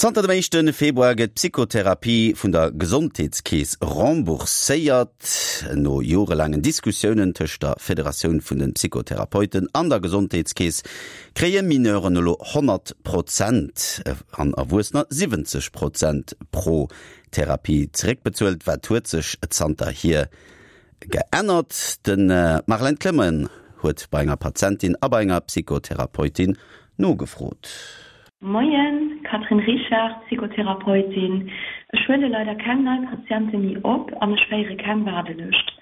Zanter dem éischte Februar gëtt d'Psychotherapie vun der Gesondheetskeess rembourséiert. No jorelaangen Diskussiounen tëscht der Federatioun vun de Psychotherapeuten an der Gesondheetskeess kréie Mineuren elo 100 Prozent an Erwuessener 70 Prozent pro Therapie zeréckbezuelt. Wat huet sech zanterhier Geännert. De Marlène Clement huet bei enger Patientin a bei enger Psychotherapeutin nogefrot. Moien, Catherine Richard, Psychotherapeutin. Ech huele leider keng nei Patiente méi op an ech féiere keng Waardelëscht.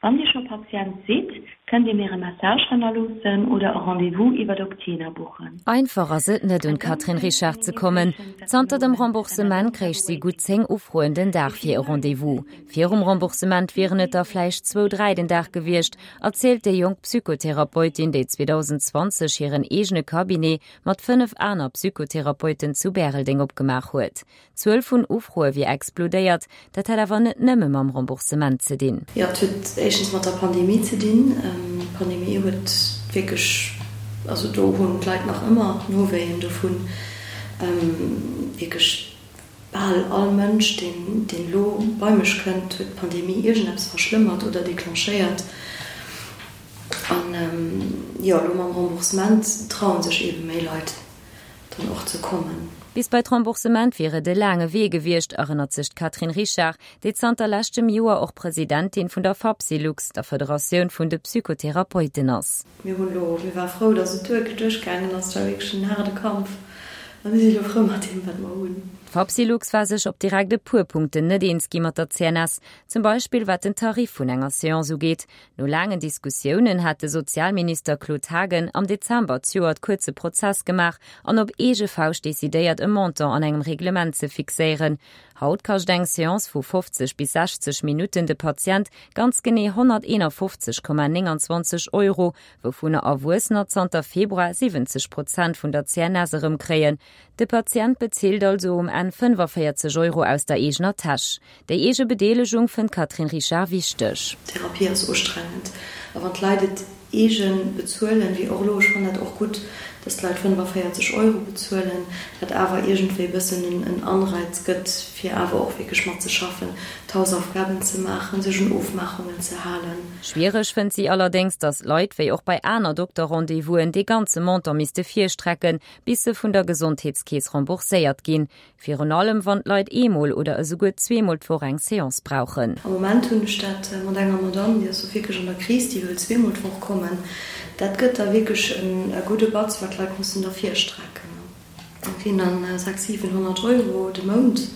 Wann Dir scho Patient sidd, kënnt Dir mir e Message hannerloossen oder e Rendez-vous iwwert Octena buchen. Einfach ass et net un d'Catherine Richard ze kommen. Zanter dem Remboursement kréich si gutt 10 Ufroen den Dag fir e Rendez-vous. Virum Remboursement wieren et der vläicht zwou, dräi den Dag gewiescht, erzielt déi jonk Psychotherapeutin, déi 2020 hiren eegene Cabinet mat 5 aner Psychotherapeuten zu Bäreldeng opgemaach huet. D'Zuel vun Ufroe wier explodéiert, dat hätt awer net nëmme mam Remboursement ze dinn. Jo, et huet éischtens mat der Pandemie ze dinn. D'Pandemie huet wierklech, also do hunn d'Leit nach ëmmer Nowéien dovun, wierklech Bal all Mënsch, deen elo bei mech kënnt, huet d'Pandemie iergendeppes verschlëmmert oder declenchéiert. An jo, elo mam Remboursement traue sech eebe méi Leit dann och ze kommen. Bis bei d'Remboursement wier et e laange Wee gewiescht, erënnert sech d'Catherine Richard, déi zanter leschtem Joer och Presidentin vun der Fapsylux, der Federatioun vun de Psychotherapeuten ass. Mir hunn elo, mir ware frou, datt et duerchgaangen ass. Et war wierklech en haarde Kampf a mir si elo frou mat deem, wat mer hunn. D'Fapsylux war sech op direkt e puer Punkten net eens gi mat der CNS, zum Beispill wat den Tarif vun enger Seance ugeet. No laangen Diskussiounen hat de Sozialminister Claude Haagen am Dezember d'Joert kuerze Prozess gemaach an op eege Fauscht decidéiert, e Montant an engem Reglement ze fixéieren. Haut kascht eng Seance vu 50 bis 60 Minutten de Patient ganz genee 151,29 Euro, wouvunner Erwuessener zanter Februar 70 Prozent vun der CNS erëmkréien. De Patient bezilt also um Enn 45 Euro aus der eegener Täsch. Déi eege Bedeelegung fënnt d'Catherine Richard wichteg. Therapie ass ustrengend a wann d'Leit et eegen bezuelen, wéi och elo, ech fannen dat och gutt, dass d'Leit 45 Euro bezuelen, dat awer iergendwéi e bëssen en Anreiz gëtt, fir awer och wierklech matzeschaffen, d'Hausaufgaben ze maachen, sech un Ofmaachungen ze halen. Schwiereg fënnt si allerdéngs, dass d'Leit, wéi och bei aner Dokter-Rendez-vousen, dee ganze Montant misste virstrecken, bis se vun der Gesondheetskeess rembourséiert ginn. Virun allem wann d'Leit eemol oder esouguer zweemol d'Woch eng Seance brauchen. Am Moment hunn ech dat mat enger Madame, déi ass do wierklech an der Kris, déi wëll zweemol d'Woch kommen. Dat gëtt da wierklech e gudde Batz, wat d'Leit mussen da virstrecken. Dat sinn dann 6, 700 Euro de Mount.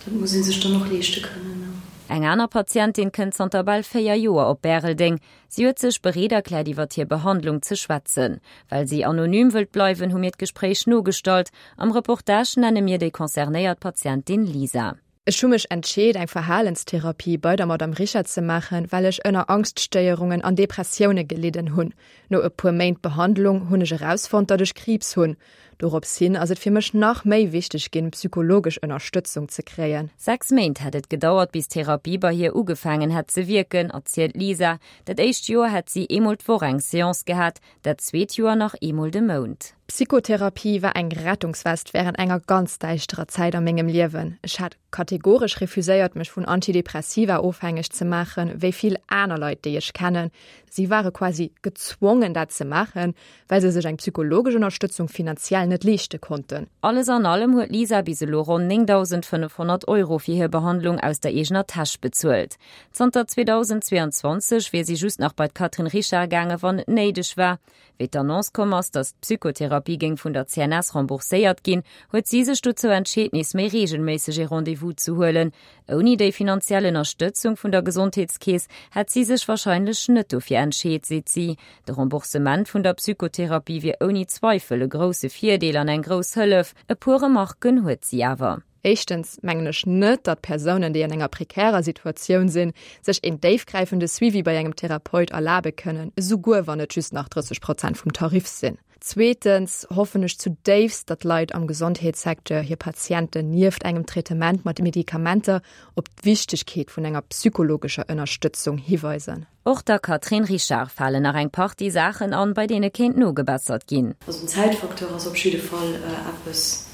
Dat muss ee sech dann och leeschte kënnen. Eng aner Patientin kënnt zanter bal 4 Joer op Bäreldeng. Si huet sech bereet erkläert iwwert hir Behandlung ze schwätzen. Well si anonym wëllt bleiwen, hu mir d'Gespréich nogestallt. Am Reportage nenne mir déi concernéiert Patientin Lisa. Ech hu mech entscheet eng Verhalenstherapie bei der Madame Richard ze maachen, well ech ënner Angststéierungen an Depressioune gelidden hunn. No e puer Méint Behandlung hunn ech erausfonnt, datt ech Kriibs hunn. Dorops hin ass et fir mech nach méi wichteg ginn, psychologesch Ënnerstëtzung ze kréien. 6 Méint hätt et gedauert, bis d'Therapie bei hir ugefaangen hätt ze wierken, erzielt d'Lisa. Dat éischt Joer hätt si eemol d'Woch eng Seance gehat, dat zweet Joer nach eemol de Mount. D'Psychotherapie war eng Rettungswest wärend enger ganz däischterer Zäit a mengem Liewen. Ech hat kategoresch refuséiert, mech vun Antidepressiva ofhängeg ze maachen, wéi vill aner Leit, déi ech kennen. Si ware quasi gezwongen, dat ze maachen, well se sech eng psychologesch Ënnerstëtzung finanziell net leeschte konnten. Alles an allem huet d'Lisa bis elo ronn 9.500 Euro fir hir Behandlung aus der eegener Täsch bezuelt. Zanter 2022 wier si just nach bei d'Catherine Richard gaange wann et néideg war. Wéi d'Annonce komm ass, datt d'Psychotherapie géing vun der CNS rembourséiert ginn, huet si sech dozou entscheet nees méi reegelméisseg ee Rendez-vous ze huelen. Ouni déi finanziell Ënnerstëtzung vun der Gesondheetskeess hätt si sech warscheinlech net dofir entscheet, seet si. De Remboursement vun der Psychotherapie wier ouni Zweifel e grousse Virdeel an eng grouss Hëllef. E puer Remarken huet si awer. Éischtens mengen ech net, datt Persounen, déi an enger prekärer Situatioun sinn, sech een déifgräifende Suivi bei engem Therapeut erlabe kënnen, esouguer wann et just nach 30 Prozent vum Tarif sinn. Zweetens hoffen ech zudéifst, datt Leit am Gesondheetssecteur hir Patienten nieft engem Traitement mat Medikamenter op d'Wichtegkeet vun enger psychologescher Ënnerstëtzung hiweisen. Och der Catherine Richard falen nach eng Partie Saachen an, bei deene kéint nogebessert ginn. Also den Zäitfacteur ass op jidde Fall eppes.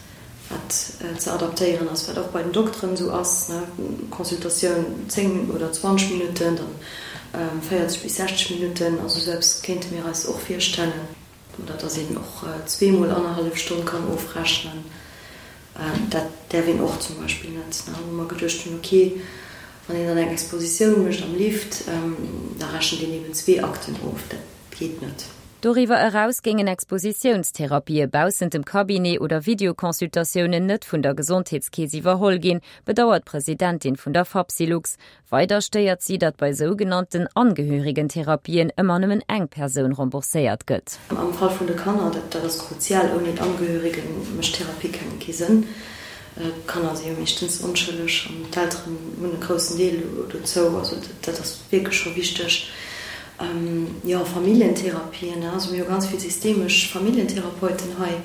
Wat ze adaptéieren ass, wat och bei den Dokteren esou ass, ne, Consultatioun 10 oder 20 Minutten, dann 40 bis 60 Minutten, also esou eppes kéinte mir eis och virstellen. Oder dass een och zweemol annerhallef Stonn kann ofrechnen, dat däerf een och zum Beispill net, ne, wou mer geduecht hunn, okay, wann een dann eng Expositioun mécht am Lift, da rechent een eben zwee Akten of, dat geet net. Doriwwer eraus géingen Expositiounstherapie baussent dem Cabinet oder Videoconsultatiounen net vun der Gesondheetskeess iwwerholl ginn, bedauert d'Presidentin vun der Fapsylux. Weider stéiert si, datt bei sougenannten Angehörigentherapien ëmmer nëmmen eng Persoun rembourséiert gëtt. Am Fall vun de Kanner, dat ass kruzial, ouni d'Angehörige mécht Therapie keng kee Sënn. D'Kanner si jo meeschtens onschëlleg an d'Elteren hunn e groussen Deel dozou. Also dat ass wierklech scho wichteg. Jo, Familljentherapien, also mir hu ganz vill systemesch Familljentherapeuten hei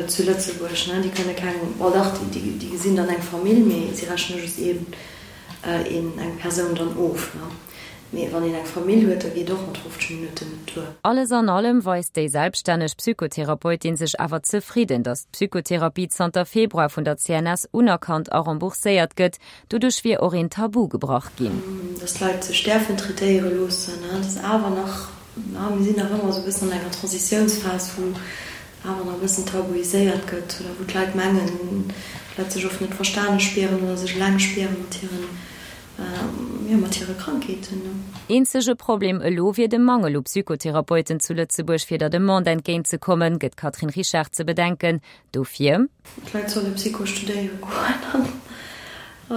zu Lëtzebuerg, déi kënne keng, bon dach, déi gesinn dann eng Famill, mee si rechne just een, eng Persoun dann of. Mee wann een eng Famill huet, da geet och mat 50 Minutten net duer. Alles an allem weist déi selbststänneg Psychotherapeutin sech awer zefridden, datt d'Psychotherapie zanter Februar vun der CNS unerkannt a rembourséiert gëtt. Doduerch wier och een Tabu gebrach ginn. Datt d'Leit sech däerfen traitéiere loossen, dat ass awer nach, mir sinn nach ëmmer esou e bëssen an enger Transitiounsphas, wou awer nach e bëssen tabuiséiert gëtt oder wou d'Leit mengen, d'Leit sech oft net verstane spieren oder sech eleng spiere mat hiren Jo, mat hire Krankheeten. Eenzege Problem elo wier de Mangel u Psychotherapeuten zu Lëtzebuerg. Fir der Demande entgéint ze kommen, gëtt d'Catherine Richard ze bedenken. Dofir. D'Leit solle Psycho studéiere goen an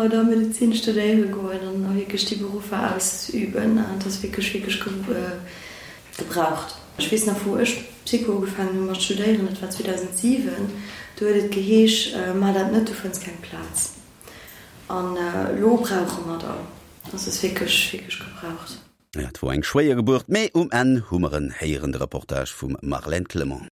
oder Medezin studéiere goen an a wierklech déi Beruffer ausüben. Dat ass wierklech, wierklech gebraucht. Ech weess nach, wou ech Psycho ugefaangen hu mat studéieren, dat war 2007, do huet et geheesch, Maach dat net, du fënns keng Plaz. An elo brauche mer der. Also ass wierklech, wierklech gebraucht. Et wor eng schwéier Gebuert, mee um Enn hu mer en héieren. De Reportage vum Marlène Clement.